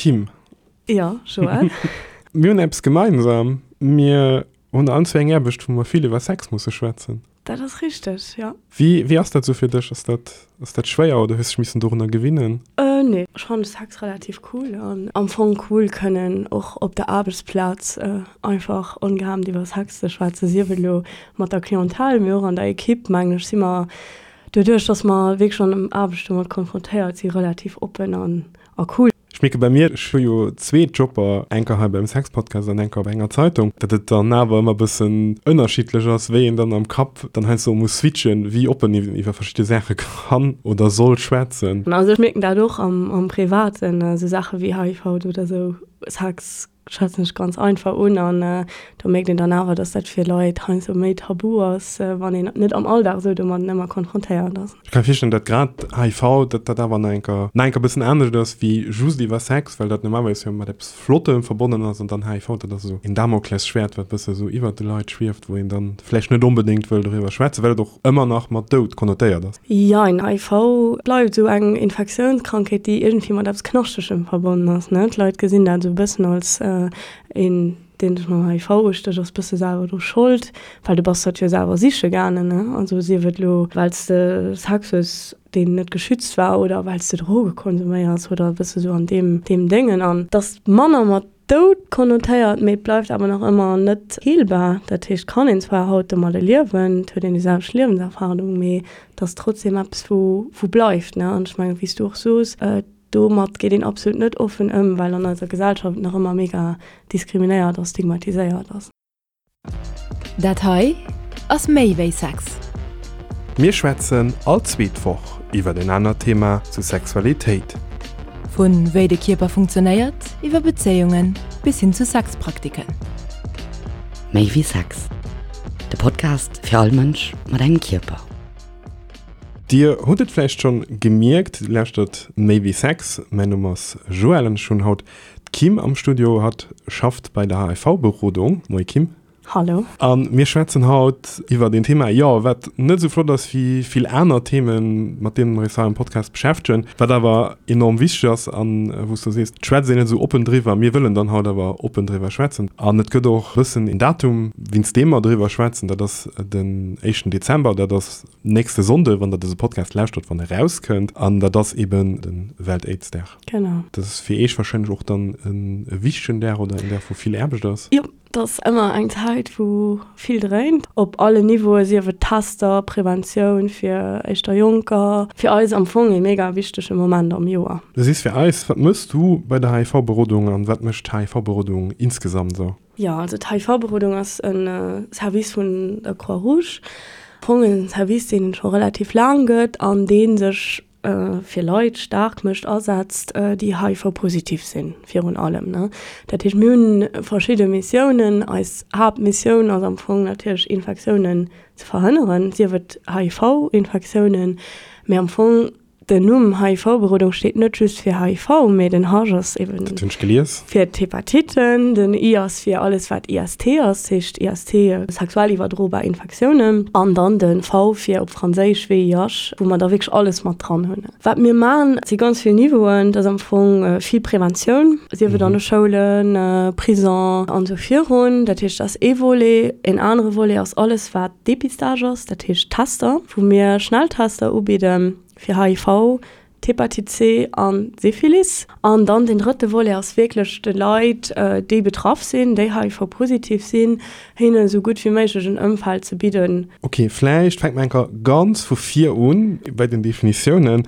Kim. Jo, Joël. Mir hunn eppes gemeinsam, mir hunn allen zwee eng Aarbecht, wou mer vill iwwer Sex musse schwätzen. Dat ass richteg, jo. Wéi, wéi ass dat sou fir dech? Ass dat, ass dat schwéier oder hues dech missen dorunner gewinnen? Nee, ech fannen Sex relativ cool an am Fong cool kënnen och op der Aarbechtsplaz einfach ongehemmt iwwer Sex ze schwätzen, sief et elo mat der Clientèle, mee och an der Equipe, mengen ech, si mer doduerch, dass mer wierklech an Aarbecht domat konfrontéiert si relativ oppen an a cool. Ech mierke bei mir, ech hu jo zwee Jobber, enker hei beim Sexpodcast an enker op enger Zeitung, datt et dann awer ëmmer e bëssen ënnerschiddlech ass, wéi een dann am Kapp dann heiansdo muss switchen, wéi oppen een iwwer verschidde Saache kann oder soll schwätzen. Also ech mierken dat och am Privaten, esou Saache wéi HIV oder esou, Sex schwätzen ech ganz einfach un an do mierkt een dann awer, dass dat fir Leit heiansdo méi tabu ass, wann een net am Alldag esou domadden ëmmer konfrontéiert ass. Ech ka mir virstellen, datt grad HIV, datt dat awer nach enker nach enker bëssen anescht ass wéi just iwwer Sex, well dat normalerweis jo mat eppes Flottem verbonnen ass an dann HIV, dat ass esou een Damoklesschwäert, wat bësse esou iwwert de Leit schwieft, wou een dann vläicht net onbedéngt wëll doriwwer schwätzen, well et och ëmmer nach mat Doud konnotéiert ass. Jein, HIV bleift esou eng Infektiounskrankheet, déi iergendwéi mat eppes Knaschtegem verbonnen ass, ne? D'Leit gesinn dat esou e bëssen als een, deen sech mam HIV ustécht, ass bësse selwer dru Schold, well du bass dat jo selwer siche gaangen, ne? Also sief et elo, well s de Sex hues, deen net geschützt war, oder well s de Droge konsuméiers oder e bësse sou an deem, deem Déngen. An dass manner mat Doud konnotéiert, mee et bleift awer nach ëmmer net heelbar. Dat heescht, kann een zwar haut domadde liewen, et huet een déi selwecht Liewenserfahrung, mee et ass trotzdem eppes, wou wou bleift, ne? An ech mengen, wéi s du och soos, domat geet een absolut net offen ëm, well an eiser Gesellschaft et nach ëmmer mega diskriminéiert a stigmatiséiert ass. Dat hei ass méi wéi Sex. Mir schwätzen all zweet Woch iwwert en anert Thema zu Sexualitéit. Vu wéi de Kierper funktionéiert, iwwer Bezéiungen bis hin zu Sexpraktiken. Méi wéi Sex, de Podcast fir all Mënsch mat engem Kierper. Dir hutt et vläicht schonn gemierkt, dir lauschtert Méi wéi Sex. Mäin Numm ass Joël an ech hunn haut D'Kim am Studio, hatt schafft bei der HIV-Berodung. Moie Kim. Hallo. A mir schwätzen haut iwwert een Thema, jo, wat net esou flott ass wéi vill aner Themen, mat deene mer eis hei am Podcast beschäftegen, wat awer enorm wichteg ass an wou s du sees, et schwätzt een net esou oppen driwwer. Mir wëllen dann haut awer oppen driwwer schwätzen. An et gëtt och e bëssen een Datum, wéinst deem mer driwwer schwätzen, dat ass den éischten Dezember, dat ass nächste Sonnde, wann der dëse Podcast lauschtert, wann e rauskënnt. An dat ass eben de Welt-Aids-Dag. Genau. Dat ass fir Iech wahrscheinlech och dann e wichtegen Dag oder en Dag, wou vill Aarbecht ass. Jo, dat ass ëmmer eng Zäit, wou vill dréint, op allen Niveauen, sief et Tester, Preventioun fir éischter Jonker. Fir eis am Fong e mega wichtege Moment am Joer. Du sees fir eis, wat méchs du bei der HIV-Berodung an wat mécht d'HIV-Berodung insgesamt esou? Jo, also d'HIV-Berodung ass e Service vun der Croix-Rouge. Am Fong e Service, deen et scho relativ laang gëtt an dee sech fir Leit staark mécht, asetzt, déi HIV-positiv sinn, virun allem. Dat heescht, mir hunn verschidde Missiounen. Eis Haaptmissioun ass am Fong natierlech, Infektiounen ze verhënneren, sief et HIV-Infektiounen, mee am Fong den Numm HIV-Berodung steet net just fir HIV, mee den H ass eben Dat hunn ech gelies. fir d'Hepatitten, den I ass fir alles wat IST ass, dat heescht IST, sexuell iwwerdrobar Infektiounen, an dann de V fir op Franséisch VIH, wou mer da wierklech alles mat dran hunn. Wat mir maachen, et si ganz vill Niveauen, et ass am Fong vill Preventioun, sief et an de Schoulen, Prison an esou virun. Dat heescht, dat ass ee Volet. Een anere Volet ass alles wat Depistage ass, dat heescht Tester, wou mir Schnelltester ubidden fir HIV, d'Hepatite C an d'Syphilis. An dann deen drëtte Volet ass wierklech de Leit, déi betraff sinn, déi HIV-positiv sinn, hinnen esou gutt wéi méiglech en Ëmfeld ze bidden. Ok, vläicht fänke mer eng Kéier ganz vu vir un bei den Definitiounen.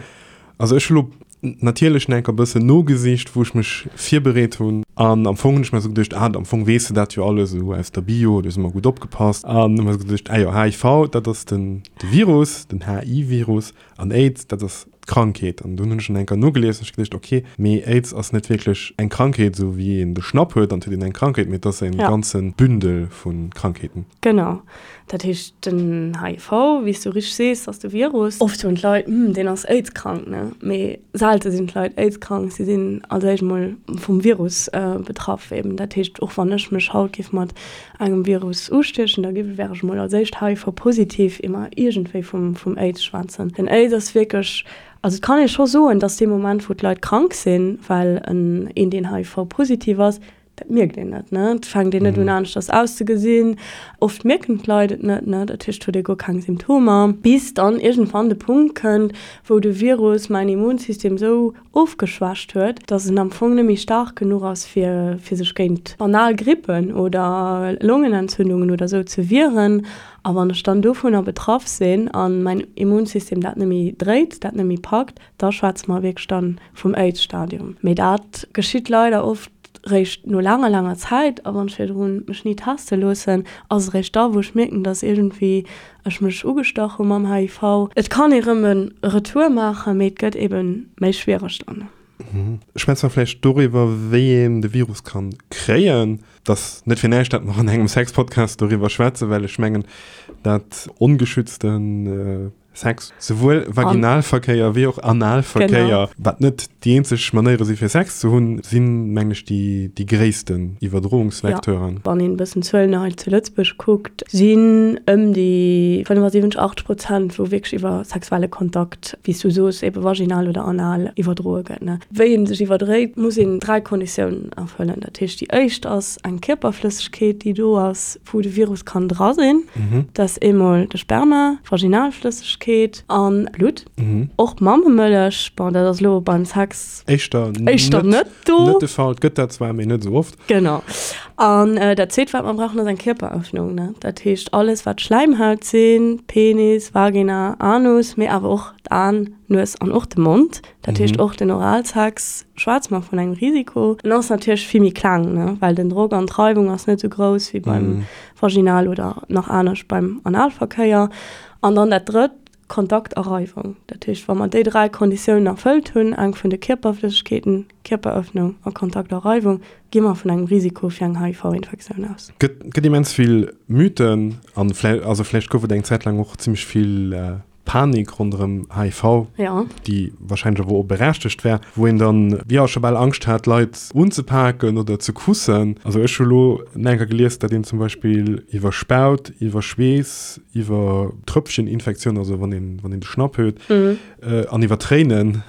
Also ech hu lo natierlech nach eng Kéier e bëssen nogesicht, wou ech mech virbereet hunn. An am Fong hunn ech mer esou geduecht, ah, am Fong weess de dat jo alles esou aus der Bio, do si mer gutt opgepasst. An hu mer esou geduecht, ah jo, HIV, dat ass den de Virus, den HI-Virus, an Aids, dat ass d'Krankheet. An dunn hunn ech nach eng Kéier nogelies an ech geduecht, ok, mee Aids ass net wierklech eng Krankheet, esou wéi een de Schnapp huet an et huet een eng Krankheet, mee et ass e ganze Bündel vu Krankheeten. Genau. Dat heescht, den HIV, wéi s du richteg sees, ass de Virus. Oft soen d'Leit, Hm, deen ass AIDS-krank, ne? Mee selte sinn d'Leit AIDS-krank. Si sinn als éischt emol vum Virus betraff eben. Dat heescht, och wann ech mech haut géif mat engem Virus ustiechen, da géif, wär ech emol als éischt HIV-positiv, ier mer iergendwéi vum, vum AIDS schwätzen. Den AIDS ass wierklech. Also et kann ee scho soen, dass dee Moment, wou d'Leit krank sinn, well en een, deen HIV-positiv ass, dat mierkt een net, ne? Et fänkt een net un aneschters auszegesinn. Oft mierken d'Leit et net, ne? Dat heescht, huet ee guer keng Symptomer, bis dann iergendwann de Punkt kënnt, wou de Virus mäin Immunsystem esou ofgeschwächt huet, dass en am Fong net méi staark genuch ass, fir fir sech géint banal Grippen oder Longenentzündungen oder esou ze wieren. A wann ech dann dovunner betraff sinn a mäin Immunsystem dat net méi dréit, dat net méi packt, da schwätze mer wierklech dann vum Aids-Stadium. Mee dat geschitt leider oft réischt no laanger, laanger Zäit. A wann ech virdrun mech ni teste loossen, ass et réischt da, wou ech mierken, dass iergendwéi ech mech ugestach hu mam HIV. Et kann ee rëm e Retour maachen, mee et gëtt ebe méi schwiereg dann. Schwätze mer vläicht doriwwer, wéi een de Virus kann kréien. Et ass net fir näischt, dat mer an engem Sex-Podcast doriwwer schwätzen, well ech mengen, dat ongeschützte Sex, souwuel Vaginalverkéier wéi och Analverkéier, wat net déi eenzeg Manéiere si fir Sex ze hunn, sinn, mengen ech, déi déi gréissten Iwwerdroungsvecteuren. Wann een e bëssen d'Zuelen hei zu Lëtzebuerg kuckt, sinn ëm déi 75, 80 Prozent, wou wierklech iwwer sexuelle Kontakt, wéi s du soos, ebe vaginal oder anal iwwerdroe gëtt. Wéi ee sech iwwerdréit, muss een 3 Konditiounen erfëllen. Dat heescht, déi éischt ass eng Kierperflëssegkeet, déi do ass, wou de Virus kann dra sinn, dat ass eemol de Sperma, Vaginalflëssegkeet an Blutt. Och Mammemëllech, bon dat ass elo beim Sex éischter éischter net do. Net de Fall, et gëtt dat zwar, mee net esou oft. Genau. An dat zweet wat mer brauchen ass eng Kierperëffnung, ne. Dat heescht alles wat Schläimhaut sinn, Penis, Vagina, Anus, mee awer och d'Aen, d'Nues an och de Mond. Dat heescht och den Oralsex schwätze mer vun engem Risiko. En ass natierlech vill méi kleng, ne, well den Drock an d'Reiwung ass net esou grouss wéi beim Vaginal oder nach anescht beim Analverkéier. An dann dat drëtt, Kontakt a Reiwung. Dat heescht, wa mer déi 3 Konditiounen erfëllt hunn, eng vun de Kierperflëssegkeeten, Kierperëffnung a Kontakt a Reiwung, gi mer vun engem Risiko fir eng HIV-Infektioun aus. Gëtt, gëtt immens vill Mythen an vläicht, also vläicht gouf et eng Zäit laang och zimmlech vill Panik ronderëm HIV, ja. déi wahrscheinlech awer och berechtegt war, wou een dann, jo, scho bal Angscht hat, Leit unzepaken oder ze kussen. Also ech hu lo enker gelies, datt een zum Beispill iwwer Spaut, iwwer Schweess, iwwer Tröpfcheninfektioun, also wann een, wann een de Schnapp huet, an iwwer Tréinen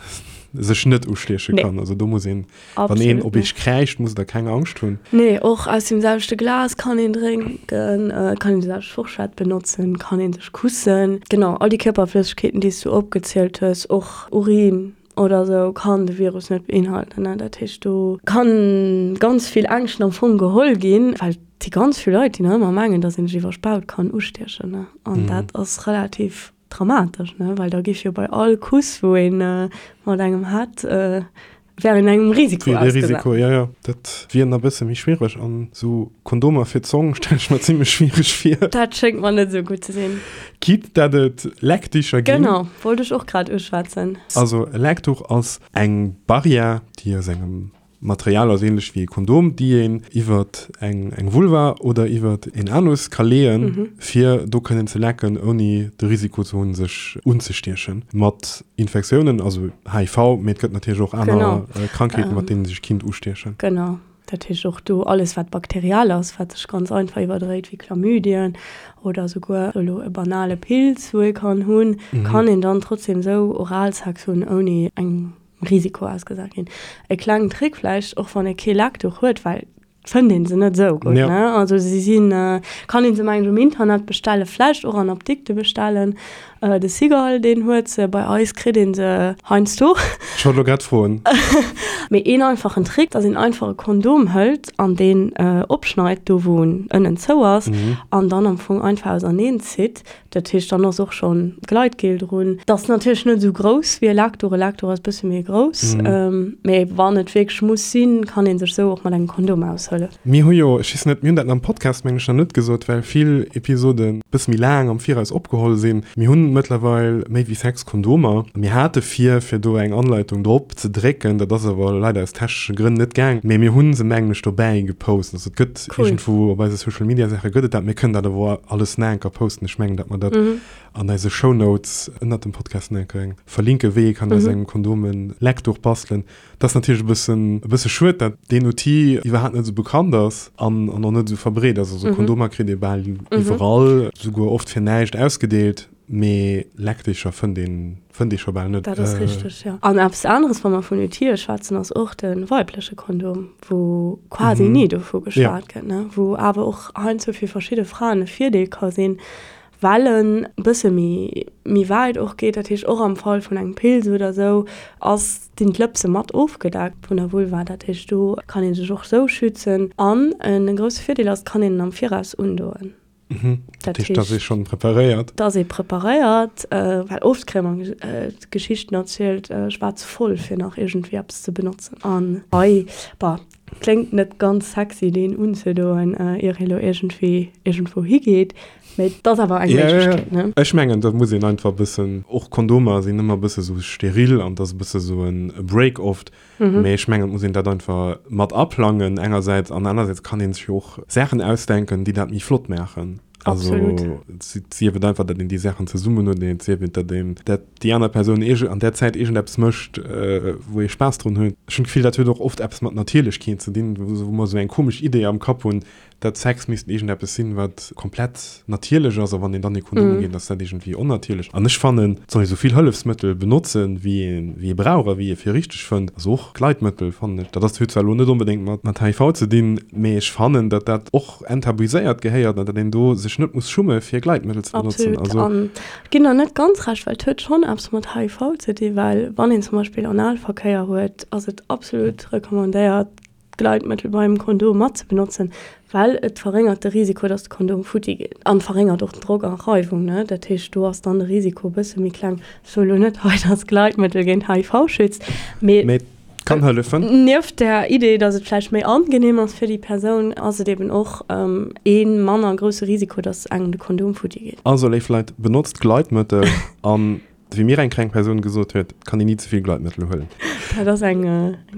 sech net ustieche kann. Also do muss een Wann een op eech kräischt, musst der keng Angscht hunn. Nee, och aus dem selwechte Glas kann een drénken, kann een déi selwecht Forschett benotzen, kann een sech kussen. Genau, all déi Kierperflëssegkeeten, déi s du opgezielt hues, och Urin oder sou, kann de Virus net beinhalten. Dat heescht, do kann ganz vill Ängschten am Fong geholl ginn, well et si ganz vill Leit, déi nach ëmmer mengen, dass een sech iwwer Spaut kann ustiechen. An dat ass relativ Dramatesch, ne? Well da géif jo bei all Kuss, wou ee mat engem hat, wär een engem Risiko ausgesat. Risiko, ja, ja. Dat wier nach e bësse méi schwiereg. An esou Kondomer fir d'Zong stelle ech mer zimmlech schwiereg vir. Dat schéngt mer net esou gutt ze sinn. Quitte dat et Leckdicher ginn. Genau, wollt ech och grad uschwätzen. Also e Leckduch ass eng Barrière, déi aus engem Material ass ähnlech wéi e Kondom, déi een iwwert eng eng Vulva oder iwwert een Anus ka leeën, fir do kënnen ze lecken, ouni de Risiko ze hunn, sech unzestiechen mat Infektiounen, also HIV, mee et gëtt natierlech och aner Krankheeten, mat deenen sech kinnt ustiechen. Genau, dat heescht och do alles wat bakteriell ass, wat sech ganz einfach iwwerdréit, wéi Chlamydien oder souguer elo e banale Pilz, wou ee kann hunn, kann een dann trotzdem esou Oralsex hunn, ouni eng Risiko ausgesat ginn. E klengen Trick vläicht, och wann ee kee Leckduch huet, well et fënnt ee se net esou gutt, ne? Also si sinn, kann ee se mengen ech um Internet bestellen, vläicht och an Apdikte bestellen. De Cigale, deen huet se, bei eis kritt ee se heiansdo. Ech wollt elo grad froen. Mee een einfachen Trick, dass een einfach e Kondom hëlt an deen opschneit, do wou en ënnen zou ass, an dann am Fong einfach auserneen zitt. Dat heescht, dann ass och schonn Gleitgel drun. Dat ass natierlech net esou grouss wéi e Lactour. E Lactour ass e bësse méi grouss. Mee wann et wierklech muss sinn, kann ee sech esou och mat engem Kondom aushëllefen. Mir hu jo, ech weess net, mir hunn dat am Podcast meng ech nach net gesot, well vill Episoden e bësse méi laang am Viraus opgeholl sinn. Mir hunn mëttlerweil méi wéi 6 Kondomer. Mir hate vir, fir do eng Anleitung drop ze drécken, dat ass awer leider aus technesche Grënn net gaang. Mee mir hu se mengen ech dobäi gepost. Also et gëtt Cool. Iergendwou op eise Social Media Saache gëtt et dat. Mir kënnen dat awer alles nach eng Kéier posten. Ech mengen, datt mer dat an eise Shownotes ënnert dem Podcast nach eng Kéier verlinken, wéi ee kann aus engem Kondom e Leckduch bastelen. Dat ass natierlech e bëssen, e bësse schued, dat deen Outil iwwerhaapt net esou bekannt ass an, an och net esou verbreet ass. Also Kondomer kritt ee bal iwwerall, souguer oft fir näischt ausgedeelt. Mee Leckdicher fënnt een, fënnt ee scho bal net. Dat ass richteg, jo. An eppes aneres, wa mer vun Outile schwätzen, ass och de weibleche Kondom, wou quasi ni dovu geschwat gëtt, ne, wou awer och heiansdo fir verschidde Fraen e Virdeel ka sinn, well en e bësse méi, méi wäit och geet. Dat heescht, och am Fall vun engem Pilz oder esou ass, sinn d'Lëpse mat ofgedeckt vun der Vulva. Dat heescht, do kann ee sech och esou schützen. An e grousse Virdeel ass, et kann een en am Viraus undoen. Mhm. Dat heescht, dass ee schonn preparéiert. Dass ee preparéiert, well oft kréie mer d'Geschichten erzielt, ech war ze voll fir nach iergendwéi eppes ze benotzen. An hei, bah, kléngt net ganz sexy deen unzedoen, ier ee lo iergendwéi iergendwou higeet, mee et ass awer eng Méiglechkeet, ne? Ech mengen, da muss een einfach e bëssen, och Kondomer sinn ëmmer e bësse sou steril an et ass e bësse sou e Break oft. Mee ech mengen, et muss een dat einfach mat aplangen engersäits an anersäits kann ee sech jo och Saachen ausdenken, déi dat méi flott maachen. Also et sief et einfach, datt een déi Saachen zesummen huet, et sief et, datt een, datt déi aner Persoun iergend an där Zäit iergendeppes mécht, wou ee Spaass drun huet. Ech hunn d'Gefill, dat huet och oft eppes mat Natierlechkeet ze dinn, wou mer esou eng komesch Idee am Kapp hunn, dat Sex misst iergendeppes sinn, wat komplett natierlech ass, a wann een dann ee Kondom ugeet, ass dat iergendwéi onnatierlech. An ech fannen, et soll ee sou vill Hëllefsmëttel benotzen, wéi ee wéi ee brauch a wéi ee fir richteg fënnt. Also och Gleitmëttel, fannen ech. Dat ass, huet zwar elo net onbedéngt mat mat HIV ze dinn, mee ech fannen, datt dat och enttabuiséiert gehéiert an datt een do sech net muss schumme fir Gleitmëttel ze benotzen. Absolut. Also. An ech ginn der net ganz Recht, well et huet schonn eppes mat HIV ze dinn, well wann een zum Beispill Analverkéier huet, ass et absolut recommandéiert, Gleitmëttel beim Kondom mat ze benotzen, well et verréngert de Risiko, dass de Kondom futti geet an verréngert och den Drock an Reiwung, ne. Dat heescht, do ass dann de Risiko e bësse méi kleng. Ech soe lo net hei, dass Gleitmëttel géint HIV schützt, mee. Mee et kann hëllefen. Nieft der Idee, dass et vläicht méi angenehm ass fir déi Persoun, ass et eben och ee manner grousse Risiko, dass engem de Kondom futti geet. Also, léif Leit, benotzt Gleitmëttel an Wéi mir eng krank Persoun gesot huet, et kann een ni ze vill Gleitmëttel huelen. Dat ass eng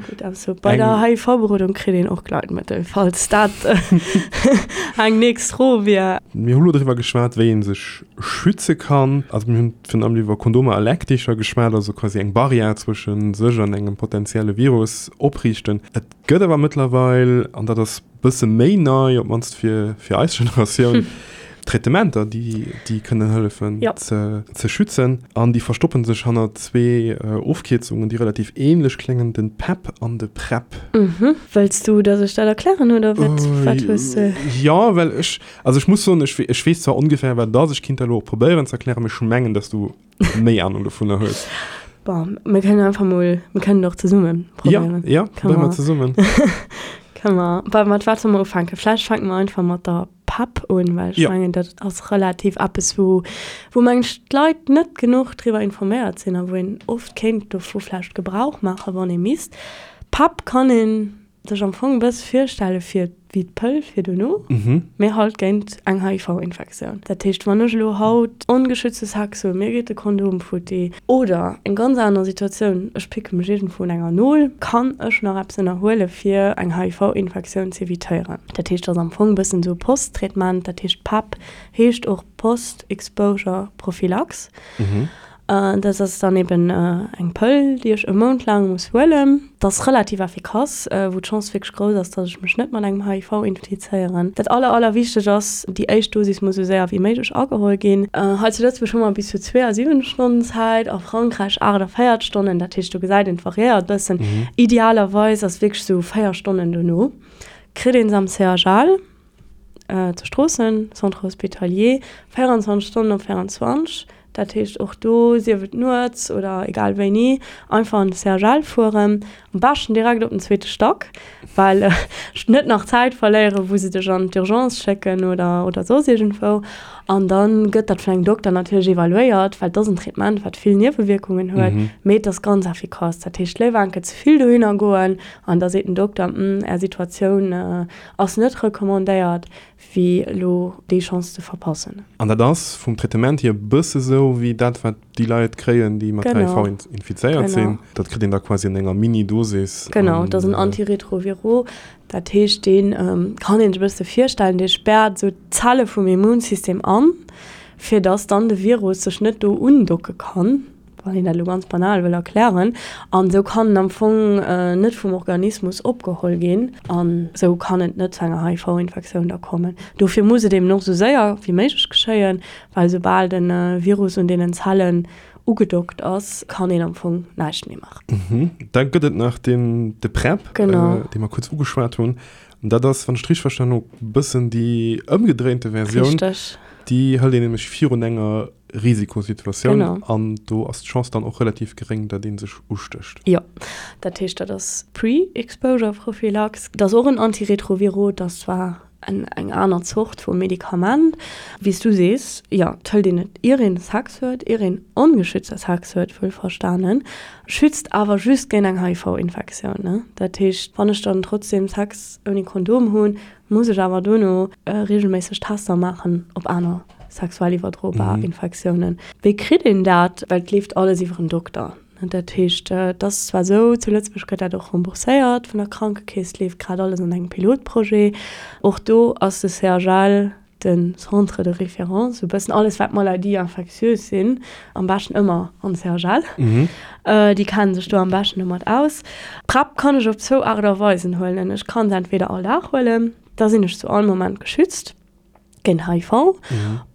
gutt Ausso. Bei der HIV-Berodung kritt een och Gleitmëttel, falls dat eng nächst Fro wier. Mir hu lo driwwer geschwat, wéi ee sech schütze kann. Also mir hunn virun allem iwwer Kondomer a Leckdicher geschwat, also quasi eng Barrière zwësche sech an engem potenzielle Virus opriichten. Et gëtt awer mëttlerweil, an dat ass bësse méi nei, op d'mannst fir, fir eis Generatioun, Traitementer, déi, déi kënnen hëllefen ja. ze, ze schützen. An déi verstoppen sech hanner zwee äh, Ofkierzungen, déi relativ ähnlech kléngen, den PEP an de PrEP. Mhm. Wëlls du, dass ech dat erklären oder wat, äh, wat hues de? Ja, well ech, also ech muss soen, ech, ech weess zwar ongefähr, wat et ass, ech kinnt dat elo och probéieren ze erklären, mee ech mengen, dass du méi Ahnung dovunner hues. Bon, mir kënnen einfach mol, mir kënnen och zesummen probéieren. Ja, ja, probéiere mer zesummen. Kënne mer, bah, mat wat solle mer ufänken? Vläicht fänke mer einfach mat der PEP un, well ech Ja. mengen, dat ass relativ eppes, wou, wou mengen ech, d'Leit net genuch driwwer informéiert sinn a wou een oft kéint dovu vläicht Gebrauch maachen, wann ee misst. PEP kann een sech am Fong e bësse virstelle fir wéi d'Pëll fir dono, mee halt géint eng HIV-Infektioun. Dat heescht, wann ech elo haut ongeschützte Sex hunn, mir geet de Kondom futti, oder eng ganz aner Situatioun, ech picke mech iergendwou un enger Nol, kann ech nach eppes ënnerhuele fir eng HIV-Infektioun z'evitéieren. Dat heescht, ass am Fong e bëssen esou e Post-Traitement, dat heescht PEP heescht och Post-Exposure Prophylaxe. Dat ass dann eben eng Pëll, déi ech e Mount laang muss huelen. Dat ass relativ effikass, wou d'Chance wierklech grouss ass, dass ech mech net mat engem HIV infizéieren. Dat aller, aller wichteg ass, déi éischt Dosis muss esou séier wéi méiglech ageholl ginn. Hei zu Lëtzebuerg hu mer bis zu 72 Stonnen Zäit, a Frankräich 48 Stonnen. Dat heescht, do gesäit een, et variéiert e bëssen. Idealerweis ass wierklech esou 4 Stonnen dono kritt een se am CHL. Zu Stroossen, Centre Hospitalier, 24 Stonnen op 24, dat heescht och do, sief et nuets oder egal wéini, einfach an de CHL fueren, am beschten direkt op den zweete Stack, well ech net nach Zäit verléieren, wou se dech an d'Urgence schécken oder oder soss iergendwou. An da gëtt dat vun engem Dokter natierlech evaluéiert, well et ass en Traitement, wat vill Niewewierkungen huet, mee et ass ganz effikass. Dat heescht, léiwer enke ze vill dohinner goen an da seet den Dokter, Hm, Är Situatioun Ass net recommandéiert wéi elo déi Chance ze verpassen. An dat ass vum Traitement hier e bësse sou wéi dat wat déi Leit kréien déi mat HIV infizéiert sinn. Dat kritt een da quasi an enger Mini-Dosis. Genau, dat ass en Antiretroviro. Dat heescht dee kann een sech e bësse virstellen, dee späert esou d'Zelle vum Immunsystem an, fir datt dann de Virus sech net do undocke kann. Wann een dat elo ganz banal wëll erklären. An esou kann en am Fong net vum Organismus opgeholl ginn an esou kann et net zu enger HIV-Infektioun da kommen. Dofir muss et eben och esou séier wéi méiglech geschéien, well soubal de Virus un deenen Zellen ugedockt ass, kann een am Fong näischt méi maachen. Da gëtt et nach den, de PrEP, dee mer kuerz ugeschwat hunn. An dat ass, wann ech et richteg verstanen hu, bëssen déi ëmgedréinte Versioun. Richteg. Déi hëlt een nämlech virun enger Risikosituatioun an do ass d'Chance dann och relativ geréng, datt ee sech ustécht. Jo, dat heescht, dat ass Pre-Exposure-Prophylax. Dat ass och en Antiretroviro, dat ass zwar eng aner Zort vu Medikament. Wéi s du sees, jo, et hëlt een et ier een Sex huet, ier een ongeschützte Sex huet, wuelverstanen, schützt awer just géint eng HIV-Infektioun. Dat heescht, wann ech dann trotzdem Sex ouni Kondom hunn, muss ech awer dono reegelméisseg Tester maachen op aner sexuell iwwerdrobar Infektiounen. Wéi kritt een dat? Well et leeft alles iwwer en Dokter. Dat heescht, et ass zwar esou, zu Lëtzebuerg gëtt dat och rembourséiert vun der Krankekeess, et leeft grad alles an engem Pilotprojet. Och do ass de CHL de Centre de référence, esou e bëssen alles wat Maladies infectieuses sinn, am beschten ëmmer an de CHL. Déi kennen sech do am beschten domat aus. D'PrEP kann ech op zwou Aart a Weisen huelen. Ech kann se entweder all Dag huelen, da sinn ech zu all Moment geschützt géint HIV.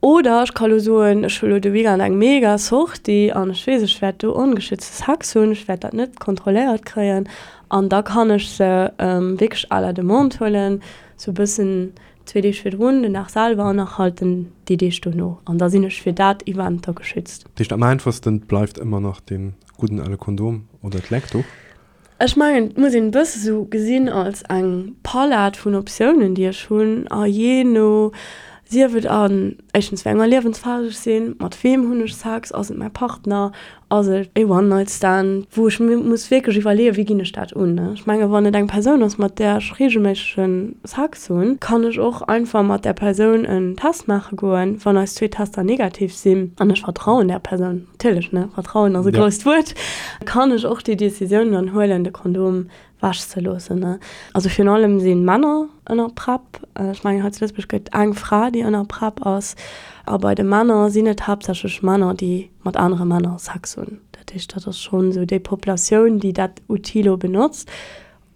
Oder ech ka lo soen, ech hu lo de Weekend eng mega Sortie an ech weess, ech wäert do ongeschützte Sex hunn, ech wäert dat net kontrolléiert kréien an da kann ech se wierklech à la demande huelen, sou e bëssen Zwee Deeg virdrun, den Dag selwer an nach halt den déi Deeg dono. An da sinn ech fir dat Event da geschützt. Dat heescht am einfachsten bleift ëmmer nach dee gudden ale Kondom oder d'Leckduch? Ech mengen et muss een e bësse sou gesinn als eng Palett vun Optiounen déi ech hunn a jee no, sief et an éischtens wéi enger Liewensphas ech sinn, mat weem hunn ech Sex, ass et mäi Partner, Ass et e One-Night-Stand, wou ech mir muss wierklech iwwerleeën, wéi ginn ech dat un? Ech menge wann et eng Persoun ass, mat där ech reegelméissege Sex hunn, kann ech och einfach mat där Persoun en Test maache goen. Wann eis zwee Tester negativ sinn, an ech vertrauen där Persoun, natierlech, ne, Vertrauen ass e grousst Wuert, kann ech och déi Decisioun dann huelen, de Kondom wech ze loossen. Also virun allem si Männer ënner PrEP. Ech mengen hei zu Lëtzebuerg gëtt eng Fra, déi ënner PrEP ass. A bei de Männer sinn et haaptsächlech Männer, déi mat anere Männer Sex hunn. Dat heescht, dat ass schonn esou déi Populatioun, déi dat Outil lo benotzt.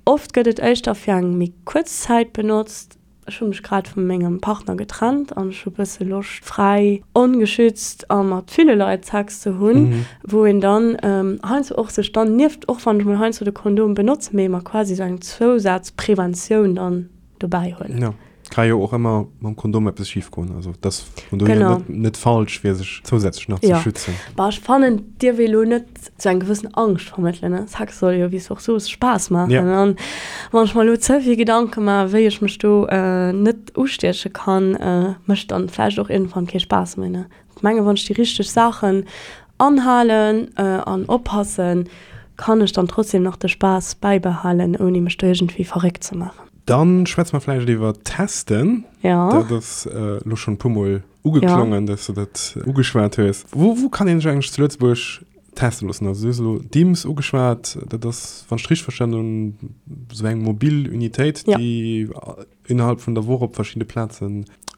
Oft gëtt et éischter fir eng méi kuerz Zäit benotzt. Ech hu mech grad vu mengem Partner getrennt an ech hu bësse Loscht fräi, ongeschützt a mat ville Leit Sex ze hunn, wou een dann heiansdo och sech dann nieft, och wann ech mol heiansdo de Kondom benotzen, mee mer quasi esou eng Zousazpreventioun dann dobäi huelen. Jo, ka jo och ëmmer mam Kondom eppes schif goen, also et ass vun dohier net net falsch fir sech zousätzlech nach ze schützen. Bah, ech fannen et dierf ee lo net sou eng gewëssen Angscht vermëttelen, ne? Sex soll jo, wéi s du och soos, Spaass maachen. Ja. An wann ech mer elo ze vill Gedanke maachen, wéi ech mech do net ustieche kann, mécht dann vläicht och iergendwann kee Spaass méi, ne? Ech menge wann ech déi richteg Saachen anhalen an oppassen, kann ech dann trotzdem nach de Spaass bäibehalen, ouni mech do iergendwéi verréckt ze maachen. Dann schwätze mer vläicht iwwer Testen. Ja. Dat ass elo schonn e puermol ugeklongen, dass du dat ugeschwat hues. Wou, wou kann een sech eigentlech zu Lëtzebuerg teste loossen? Also du hues elo d'IMS ugeschwat, dat ass, wann ech et richteg verstanen hunn, esou eng mobil Unitéit, déi innerhalb vun der Woch op verschidde Plaze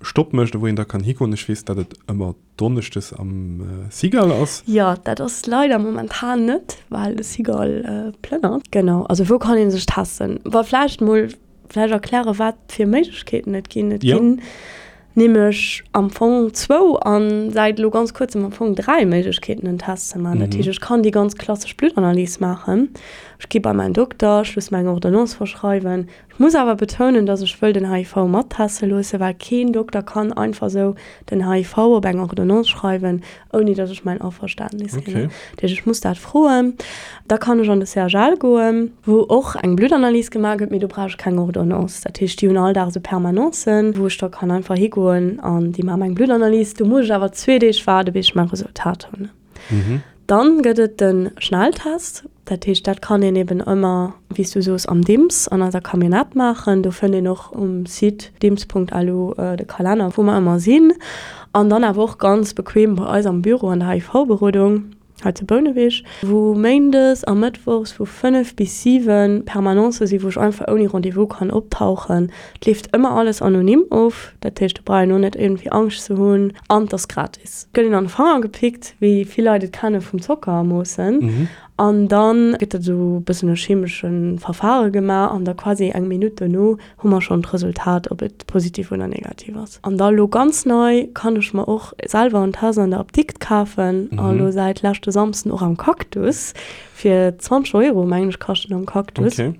Stopp mécht a wou een da kann higoen. Ech weess, datt et ëmmer donneschdes am Cigale ass. Jo, dat ass leider momentan net, well de Cigale plënnert. Genau, also wou kann ee sech testen? Wa vläicht mol vläicht erklären, wat fir Méiglechkeeten et ginn. Et ginn nämlech am Fong zwou a säit elo ganz kuerzem am Fong dräi Méiglechkeeten, en Test ze maachen. Dat heescht, ech kann déi ganz klassesch Bluttanalys maachen. Ech gi bei mäin Dokter, ech loosse mer eng Ordonnance verschreiwen. Ech muss awer betounen, dass ech wëll den HIV matteste loossen, well keen Dokter kann einfach esou den HIV op eng Ordonnance schreiwen, ouni dass ech mäin Averständnis ginn. Okay. Dat heescht, ech muss dat froen. Da kann ech an de CHL goen, wou och eng Bluttanalys gemaach gëtt, mee do brauch ech keng Ordonnance. Dat heescht, déi hunn all Dag esou Permanencen, wou ech da kann einfach higoen an déi maache meng Bluttanalys. Do muss ech awer zwee Deeg waarde bis ech mäi Resultat hunn. Dann gëtt et de Schnelltest. Dat heescht, dat kann een eben ëmmer, wéi s du soos, am DIMS an eiser Camionnette maachen. Do fënnt een och um Site dims.lu de Kalenner, wou mer ëmmer sinn. An dann awer och ganz bequem bei eis am Büro an der HIV-Berodung. Hei zu Bouneweg, wou méindes a mëttwochs vu 5 bis 7 Permanencë sinn, wou ech einfach ouni Rendez-vous kann optauchen. Et leeft ëmmer alles anonym of, dat heescht, do brauch een och net iergendwéi Angscht ze hunn an et ass gratis. Et gëtt een an de Fanger gepickt, wéi vill Leit et kenne vum Zocker moossen, an da gëtt dat esou e bëssen e chemesche Verfare gemaach an da quasi eng Minutt dono hu mer schonn d'Resultat, ob et positiv oder negativ ass. An da lo ganz nei kann ech mer och selwer en Test an der Apdikt kafen a lo säit leschte Samsden och am Cactus fir 20 Euro, mengen ech, kascht en am Cactus. Okay.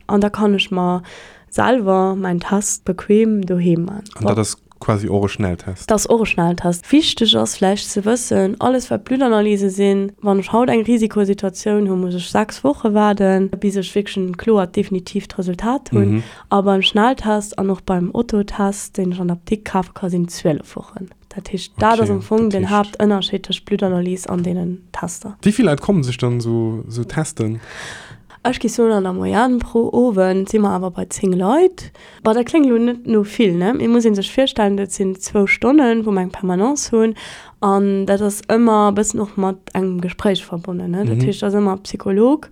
An da kann ech mer selwer mäin Test bequem doheem man. An dat ass Quasi och e Schnelltest. Dat ass och e Schnelltest. Wichteg ass vläicht ze wëssen, alles wat Bluttanalyse sinn, wann ech haut eng Risikosituatioun hunn, muss ech 6 Woche waarden, bis ech wierklech en kloert, definitiivt Resultat hunn. A beim Schnelltest an och beim Otto-Test, deen ech an der Apdikt kafe ka sinn 12 Wochen. Dat heescht, dat ass am Fong den Haaptënnerscheed tëscht Bluttanalyse an deenen Tester. Wéi vill Leit kommen sech dann esou testen? Ech géif soen, an der Moyenne pro Owend si mer awer bei 10 Leit. Bon, dat kléngt elo net no vill, ne? Mee muss ee sech virstellen, dat sinn zwou Stonnen, wou mer eng Permanence hunn. An dat ass ëmmer e bëssen och mat engem Gespréich verbonnen, ne? Dat heescht, et ass ëmmer Psycholog,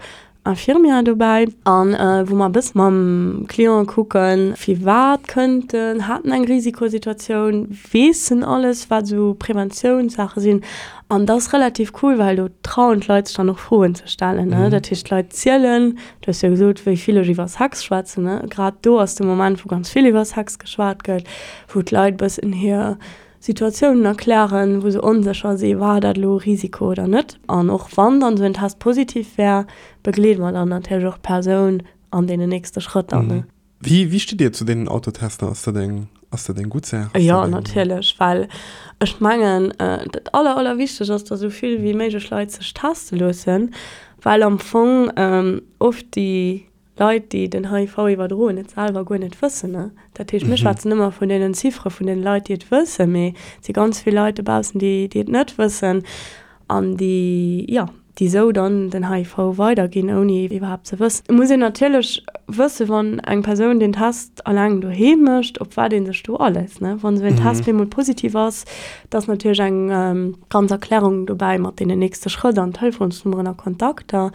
Infirmière dobäi an wou mer e bësse mam Client kucken, firwat kënnt en, hat en eng Risikosituatioun, weess en alles, wat esou Preventiounssaache sinn. An dat ass relativ cool, well do trauen d'Leit sech dann och Froen ze stellen, ne? Dat heescht, d'Leit zielen, du hues jo gesot, wéi vill ech iwwer Sex schwätzen, ne? Grad do ass de Moment, wou ganz vill iwwer Sex geschwat gëtt, wou d'Leit e bëssen hir Situatiounen erklären, wou se onsécher si, war dat elo e Risiko oder net. An och wann dann esou en Test positiv wär, begleede mer dann natierlech och d'Persoun an deenen nächste Schrëtter, ne? Wéi, wéi stitt Dir zu deenen Autotester? Ass dat eng, ass dat eng gutt Saach? Ass Jo, dat eng. natierlech, well ech mengen, dat aller, allerwichtegst ass, datt esou vill wéi méiglech Leit sech teste loossen, well am Fong oft déi Leit, déi den HIV iwwerdroen, et selwer guer net wëssen. Dat heescht, mir schwätzen ëmmer vun deenen Ziffere vun deene Leit, déi et wëssen, mee et si ganz vill Leit dobaussen, déi, déi et net wëssen an déi, jo, déi esou dann den HIV weiderginn, ouni iwwerhaapt ze wëssen. Et muss een natierlech wëssen, wann eng Persoun den Test alleng doheem mécht, op wat ee sech do aléisst, ne. Wann esou en Test bemol positiv ass, da ass natierlech eng ganz Erklärung dobäi mat deenen nächste Schrëtt an Telefonsnummeren a Kontakter.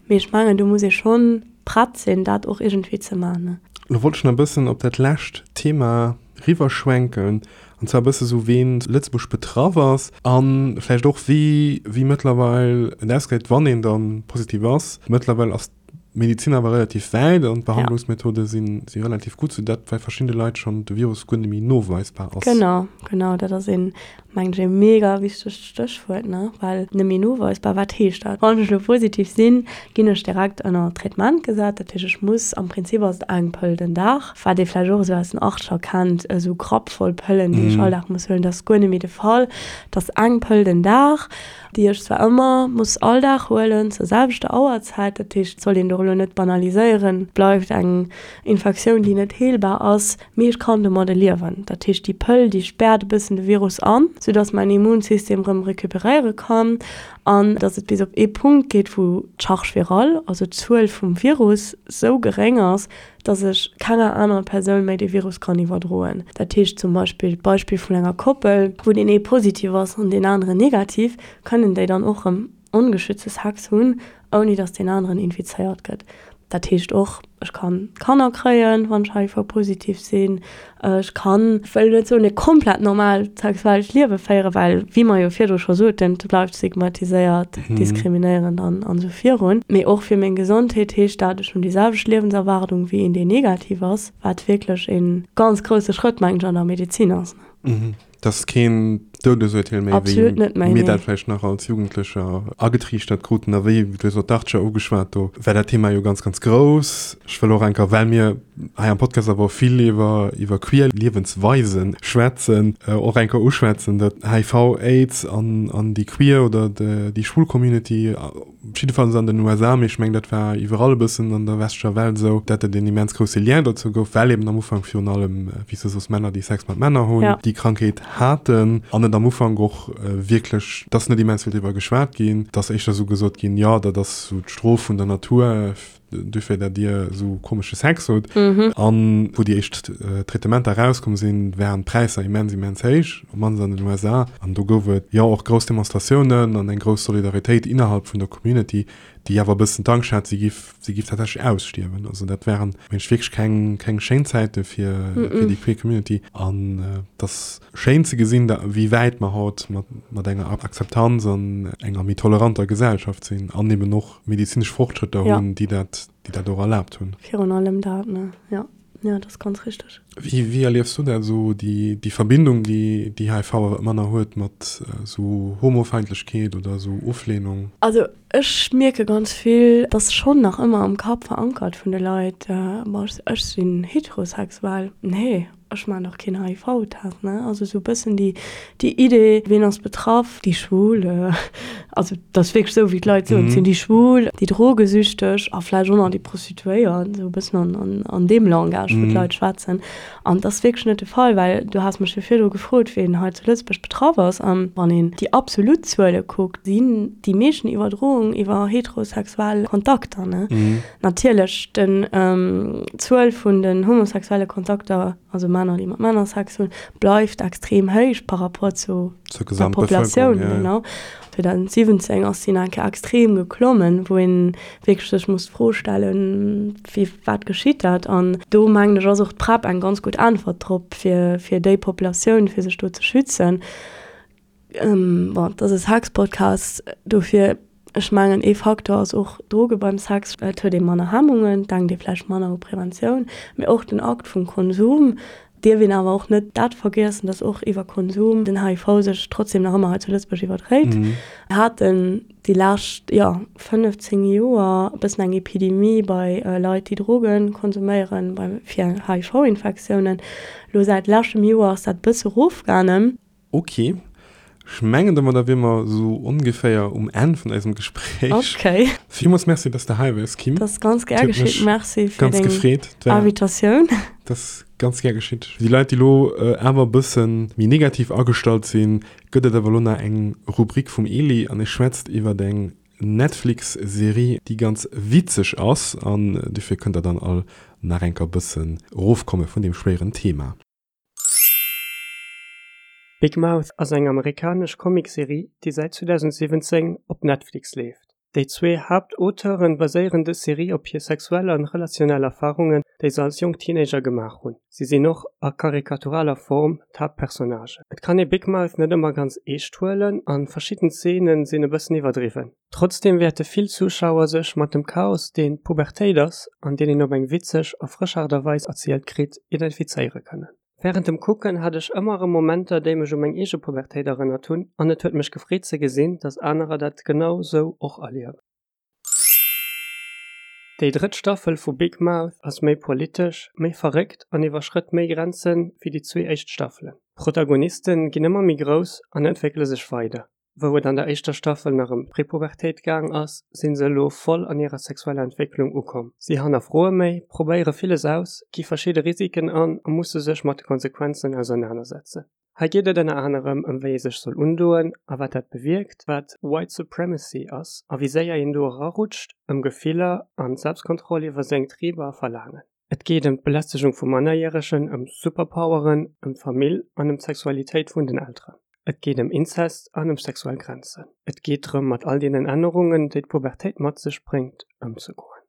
Mee ech mengen, do muss ee schonn prett sinn, dat och iergendwéi ze man. Lo wollt ech nach e bëssen op dat lescht Thema riwwerschwenken, an zwar e bësse sou ween zu Lëtzebuerg betraff ass a vläicht och wéi wéi mëttlerweil et ausgesäit, wann een da positiv ass. Mëttlerweil ass d'Medizin awer relativ wäit an d'Behandlungsmethode si si relativ gutt, soudatt bei verschiddene Leit schonn de Virus guer net méi noweisbar ass. Genau, genau, dat ass een Mengen ech e mega wichtegt Stéchwuert, ne? Well nëmme noweisbar, wat heescht dat? Wann ech elo positiv sinn, ginn ech direkt ënner Traitement gesat. Dat heescht, ech muss, am Prinzip ass et eng Pëll den Dag, wat ee vläicht och esou aus den Achtscher kennt, esou grappvoll Pëllen, déi ech all Dag muss huelen. Dat ass guer net méi de Fall. Et ass eng Pëll den Dag, déi ech zwar ëmmer muss all Dag huelen, zur selwechter Auerzäit. Dat heescht, et sollt een do elo net banaliséieren, et bleift eng Infektioun, déi net heelbar ass. Mee ech kann domadde liewen. Dat heescht, déi Pëll, déi späert e bëssen de Virus an, soudass mäin Immunsystem rëm recuperéiere kann an dass et bis op ee Punkt geet, wou d'Charge virale, also d'Zuel vum Virus, sou geréng ass, dass ech kenger anerer Persoun méi de Virus kann iwwerdroen. Dat heescht zum Beispill, d'Beispill vun enger Koppel, wou deen ee positiv ass an deen aneren negativ, kënnen déi dann och rëm ongeschützte Sex hunn, ouni dass deen aneren infizéiert gëtt. Dat heescht och, ech kann Kanner kréien, wann ech HIV-positiv sinn. Ech kann, ech wëll net soen, e komplett normaalt sexuellt Liewe féieren, well, wéi mer jo virdru scho soten, et bleift stigmatiséiert, diskriminéierend an esou virun. Mee och fir meng Gesondheet heescht dat, ech hunn déi selwecht Liewenserwaardung wéi een, deen negativ ass, wat wierklech e ganz grousse Schrëtt, mengen ech, an der Medezin ass. Dat ass keen Doudesurteel méi, Absolut net méi, wéi mir dat vläicht nach als Jugendlecher agetriichtert kruten. A wéi, du hues och d'Archer ugeschwat, do war dat Thema jo ganz, ganz grouss. Ech wëll och eng Kéier, well mir hei am Podcast awer och vill iwwer, iwwer queer Liewensweise schwätzen, och eng Kéier uschwätzen, datt HIV, Aids an, an déi queer oder déi schwul Community, jiddefalls an den USA, mee ech mengen dat war iwwerall e bëssen an der westlecher Welt esou, dat et een immens grousse Lien dozou gouf, well eben am Ufank virun allem, wéi s de soos, Männer, déi Sex mat Männer hunn, déi Krankheet haten. An et. An et am Ufank och wierklech, et ass net immens vill driwwer geschwat ginn, et ass éischter esou gesot ginn, jo, dat ass esou d'Strof vun der Natur, dofir dat dir esou komesche Sex hutt. An wou déi éischt Traitementer erauskomm sinn, waren d'Präisser immens, immens héich, op d'mannst an den USA. An do gouf et jo och grouss Demonstratiounen an eng grouss Solidaritéit innerhalb vun der Community, déi awer e bëssen d'Angscht hat, si giff, si giff tatsächlech ausstierwen. Also dat waren, mengen ech, wierklech keng, keng schéin Zäite fir, fir déi queer Community. An et ass schéin ze gesinn, da, wéi wäit mer haut mat, mat enger Akzeptanz an enger méi toleranter Gesellschaft sinn an eben och medezinesch Fortschrëtter hunn, déi dat, déi dat och erlaabt hunn. Virun allem dat, ne? Jo, jo, dat ass ganz richteg. Wéi, wéi erliefs du dat esou, déi, déi Verbindung, déi, déi HIV awer ëmmer nach huet mat esou Homofeindlechkeet oder esou Oflehnung? Also ech mierke ganz vill, dass schonn nach ëmmer am Kapp verankert vun de Leit, ma ech, ech sinn heterosexuell, nee. Ech maan dach keen HIV-Test, ne? Also sou bëssen déi, déi Idee, ween ass betraff? Déi Schwul, also dat ass wierklech sou wéi d'Leit soen, et sinn déi Schwul, déi Drogesüchteg a vläicht och nach déi Prostituéiert, sou e bëssen an, an, an deem Langage, wou d'Leit schwätzen. An dat ass wierklech net de Fall, well du has mech jo virdru gefrot, ween hei zu Lëtzebuerg betraff ass. An wann een déi absolut Zuele kuckt, sinn déi meeschten Iwwerdroungen iwwer heterosexuell Kontakter, ne? Natierlech, den d'Zuel vun den homosexuelle Kontakter, also Männer, déi mat Männer Sex hunn, bleift extrem héich par rapport zu der Populatioun. Genau. 2017 ass si nach eng Kéier extrem geklommen, wou een wierklech sech muss d'Fro stellen, wéi, wat geschitt dat? An do mengen ech ass och d'PrEP eng ganz gutt Äntwert drop, fir, fir déi Populatioun, fir sech do ze schützen. Bon, et ass e Sex-Podcast, dofir, ech mengen ee Faktor ass och Droge beim Sex. Et huet ee manner Hemmungen, et denkt ee vläicht manner u Preventioun, mee och den Akt vum Konsum. Dierf een awer och net dat vergiessen, datt och iwwer Konsum den HIV sech trotzdem nach ëmmer hei zu Lëtzebuerg iwwerdréit. Mir haten déi lescht, jo, 15 Joer e bëssen eng Epidemie bei Leit, déi Droge konsuméieren, bei fir HIV-Infektiounen. Elo säit leschtem Joer ass dat e bësse erofgaangen. Ok, ech mengen domadder wier mer esou ongeféier um Enn vun eisem Gespréich. Ok. Villmools Merci, dass de hei waars, Kim. Dat ass ganz gär geschitt. Merci fir deng Invitatioun. Dat ass ganz gär geschitt. Fir déi Leit, déi elo awer e bësse méi negativ agestallt sinn, gëtt et awer elo nach eng Rubrik vum Eli an e schwätzt iwwert eng Netflix-Serie, déi ganz witzeg ass an dofir kënnt der dann all nach enker bëssen erofkomme vun deem schwéieren Thema. Big Mouth ass eng amerikanesch Comicserie, déi säit 2017 op Netflix leeft. Déi zwee Haaptauteure baséieren dës Serie op hir sexuell an relationell Erfarungen, déi se als jonk Teenager gemaach hunn. Si sinn och a karikaturaler Form d'Haaptpersonnagen. Et kann ee Big Mouth net ëmmer ganz eescht huelen a verschidden Zeene sinn e bëssen iwwerdriwwen. Trotzdeem wäerte vill Zuschauer sech mat dem Chaos, deen d'Pubertéit ass an deen een op eng witzeg a frësch Aart a Weis erzielt kritt, identifizéiere kënnen. Wärend dem Kucken hat ech ëmmer erëm Momenter, déi mech u meng eege Pubertéit erënnert hunn an et huet mech gefreet ze gesinn, dass anerer dat genau sou och erliewen. Déi drëtt Staffel vu Big Mouth ass méi politesch, méi verréckt an iwwerschrëtt méi Grenze wéi déi zwee éischt Staffelen. D'Protagoniste ginn ëmmer méi grouss an entwéckele sech weider. Wou et an der éischter Staffel nach ëm d'Prepubertéit gaang ass, sinn se elo voll an hirer sexueller Entwécklung ukomm. Si hannerfroe méi, probéiere villes aus, gi verschidde Risiken an a musse sech mat de Konsequenzen ausernanersetzen. Hei geet et ënner anerem ëm wéi ee sech soll undoen a wat dat bewierkt, wat White Supremacy ass a wéi séier een do erarutscht, ëm Gefiller an Selbstkontroll iwwer seng Triber a Verlaangen. Et geet ëm d'Belästegung vu Mannerjäregen, ëm Superpoweren, ëm d'Famill an ëm d'Sexualitéit vun den Elteren. Et geet ëm Inzest an ëm sexuell Grenzen. Et geet drëm, mat all deenen Ännerungen, déi d'Pubertéit mat sech bréngt, ëmzegoen.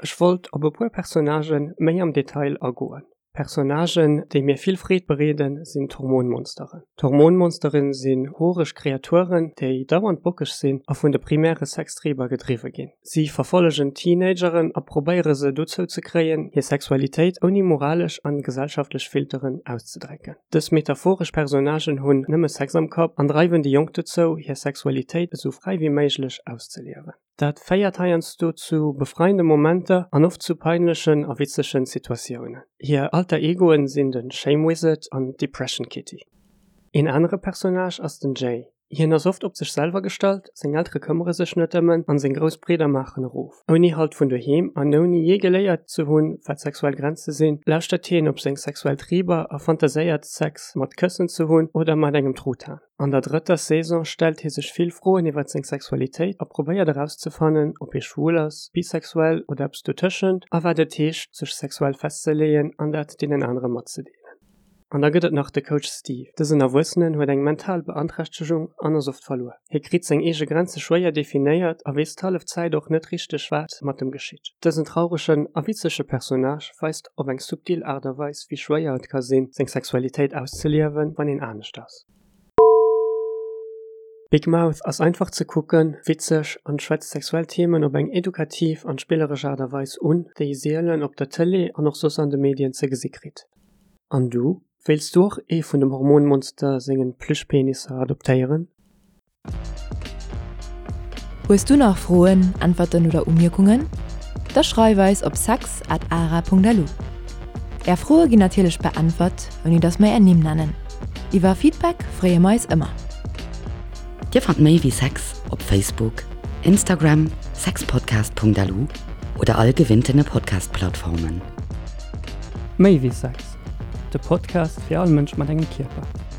Ech wollt op e puer Personnagë méi am Detail agoen. Personnagen, déi mir vill Freed bereeden, sinn d'Hormonmonsteren. D'Hormonmonsteren sinn horeg Kreaturen, déi dauernd bockeg sinn a vun de primäre Sextriber gedriwwe ginn. Si verfollegen Teenageren a probéiere se dozou ze kréien, hir Sexualitéit ouni moralesch an gesellschaftlech Filteren auszedrécken. Dës metaphoresch Personnagen hunn nëmme Sex am Kapp an dreiwen déi Jonk dozou, hir Sexualitéit esou fräi wéi méiglech auszeliewen. Dat féiert heiansdo zu befreiende Momenter an oft zu peinlechen a witzegen Situatiounen. Hir Alter Egoen sinn de Shame Wizard an d'Depression Kitty. Een anere Personnage ass den Jay. Hien ass oft op sech selwer gestallt, seng Eltere këmmere sech net ëm en an seng grouss Bridder maachen erof. Ouni Halt vun doheem an ouni jee geléiert ze hunn, wat sexuell Grenze sinn, lauschtert hien op seng sexuell Triber a fantaséiert, Sex mat Këssen ze hunn oder mat engem Truthahn. An der drëtter Saison stellt hie sech vill Froen iwwer seng Sexualitéit a probéiert erauszefannen, ob hie schwul ass, bisexuell oder eppes dotëschent a wat et heescht, sech sexuell festzeleeën an dat deenen anere matzedeelen. An da gëtt et nach de Coach Steve. Dësen Erwuessenen huet eng mental Beanträchtegung an ass oft verluer. Hie kritt seng eege Grenze schwéier definéiert a weess d'hallef Zäit och net richteg wat mat em geschitt. Dësen trauregen a witzege Personnage weist op eng subtil Aart a Weis wéi schwéier et ka sinn seng Sexualitéit auszeliewen, wann een anescht ass. Big Mouth ass einfach ze kucken, witzeg an schwätzt sexuell Themen op eng edukativ an spilleresch Aart a Weis un, déi ee sielen op der Tëlee an och soss an de Medien ze gesi kritt. An du? Wéilts du och ee vun dem Hormonmonster sengen Plüschpenisser adoptéieren? Hues du nach Froen, Äntwerten oder Umierkungen? Da schreif eis op sex at ara.lu. Är Froe ginn natierlech beäntwert, ouni dass mer är Nimm nennen. Iwwer Feedback freeë mer eis ëmmer. Dir fannt méi wéi Sex op Facebook, Instagram, sexpodcast.lu oder all gewinntene Podcast-Plattformen. Méi wéi Sex, de Podcast fir all Mënsch mat engem Kierper.